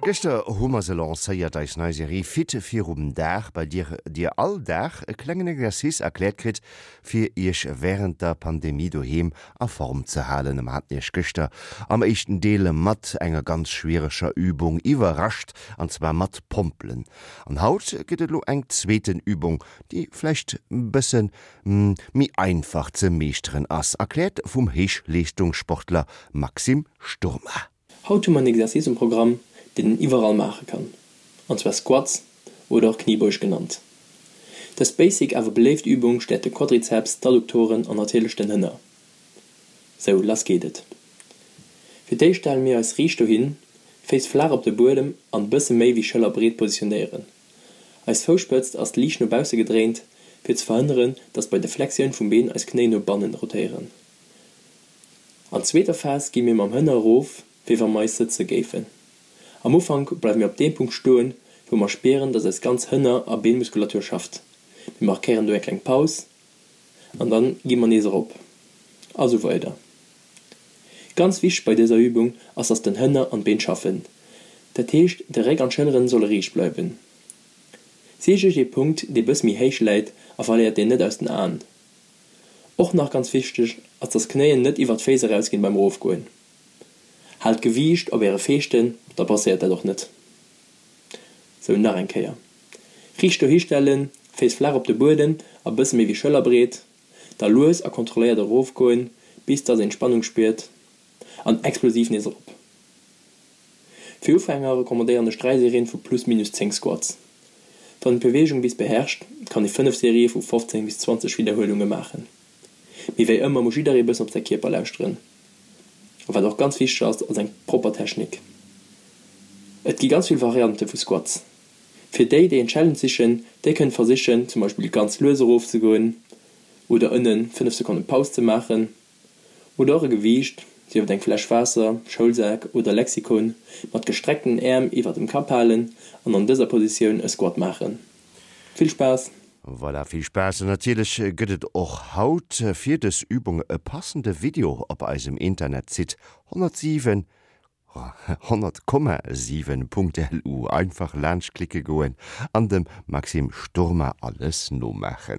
Gëschter hu mer se lancéiert, eis nei Serie Fit virum Dag, bei dir dir all Dag e klengen Exercice erkläert kritt, fir iech wärend der Pandemie doheem a Form ze halen. Mer haten iech gëschter am éischten Deel mat enger ganz schwiereger Übung iwwerrascht, an zwar mat Pompelen. An haut gëtt et elo eng zweeten Übung, déi vläicht bësse méi einfach ze meeschteren ass, erkläert vum Héichleeschtungssportler Maxime Sturma. Haut hu mer en Exercice um Programm, deen een iwwerall maache kann, an zwar Squats oder och Kniebeuge genannt. Dës basic awer beléift Übung stäerkt de Quadrizeps, d'Adduktoren an natierlech den Hënner. Sou, lass geet et! Fir d'éischt stelle mir eis riicht dohin, Féiss flaach op de Buedem an bësse méi wéi schëllerbreet positionéieren. Eis Fousspëtzt ass liicht no bausse gedréint, fir ze verhënneren, dass bei der Flexioun vum Been eis Knéi no bannen rotéieren. An zweeter Phas gi mir mam Hënner erof, wéi wa mer eis sëtze géifen. Am Ufank bleiwe mir op deem Punkt stoen, wou mer spieren, dass eis ganz Hënner a Beenmuskulatur schafft. Mir markéieren do eng kleng Paus an dann gi mer nees erop a sou weider. Ganz wichteg bei dëser Übung ass, dass den Hënner an d'Been schaffen. Dat heescht, de Réck an d'Schëlleren solle riicht bleiwen. Sicht iech ee Punkt, dee bësse méi héich läit a verléiert deen net aus den Aen. Och nach ganz wichteg ass dass d'Knéien net iwwert d'Féiss erausginn beim Erofgoen. Haalt d'Gewiicht op äre Feeschten, da passéiert dat och net. Sou, nach eng Kéier. Riicht dohi stellen, Féiss flaach op de Buedem a bësse méi wéi schëllerbreet, da lues a kontrolléiert erofgoen bis dass een d'Spannung spiert an explosiv nees erop. Fir Ufänger recommandéieren ech 3 Serien vu plus minus 10 Squats. Wann een d'Beweegung bis beherrscht, kann ee 5 Serië vu 15 bis 20 Widderhuelunge maachen. Mee wéi ëmmer muss jidderee bëssen op säi Kierper lauschteren. A wat och ganz wichteg ass, ass eng propper Technik. Et gi ganz vill Variante vu Squats. Fir déi, déi en Challenge sichen, déi kënnen versichen zum Beispill ganz lues erof ze goen oder ënnen 5 Sekonne Paus ze maachen. Oder och e Gewiicht, sief et eng Fläsch Waasser, Schoulsak oder Lexikon, mat gestreckten Äerm iwwer dem Kapp halen an an dëser Positioun e Squat maachen. Vill Spaass! Voilà, vill Spaass! An natierlech gëtt et och haut fir dës Übung e passende Video op eisem Internetsite 107, 100,7.lu. Einfach laanscht klicke goen an dem Maxime Sturma alles nomaachen.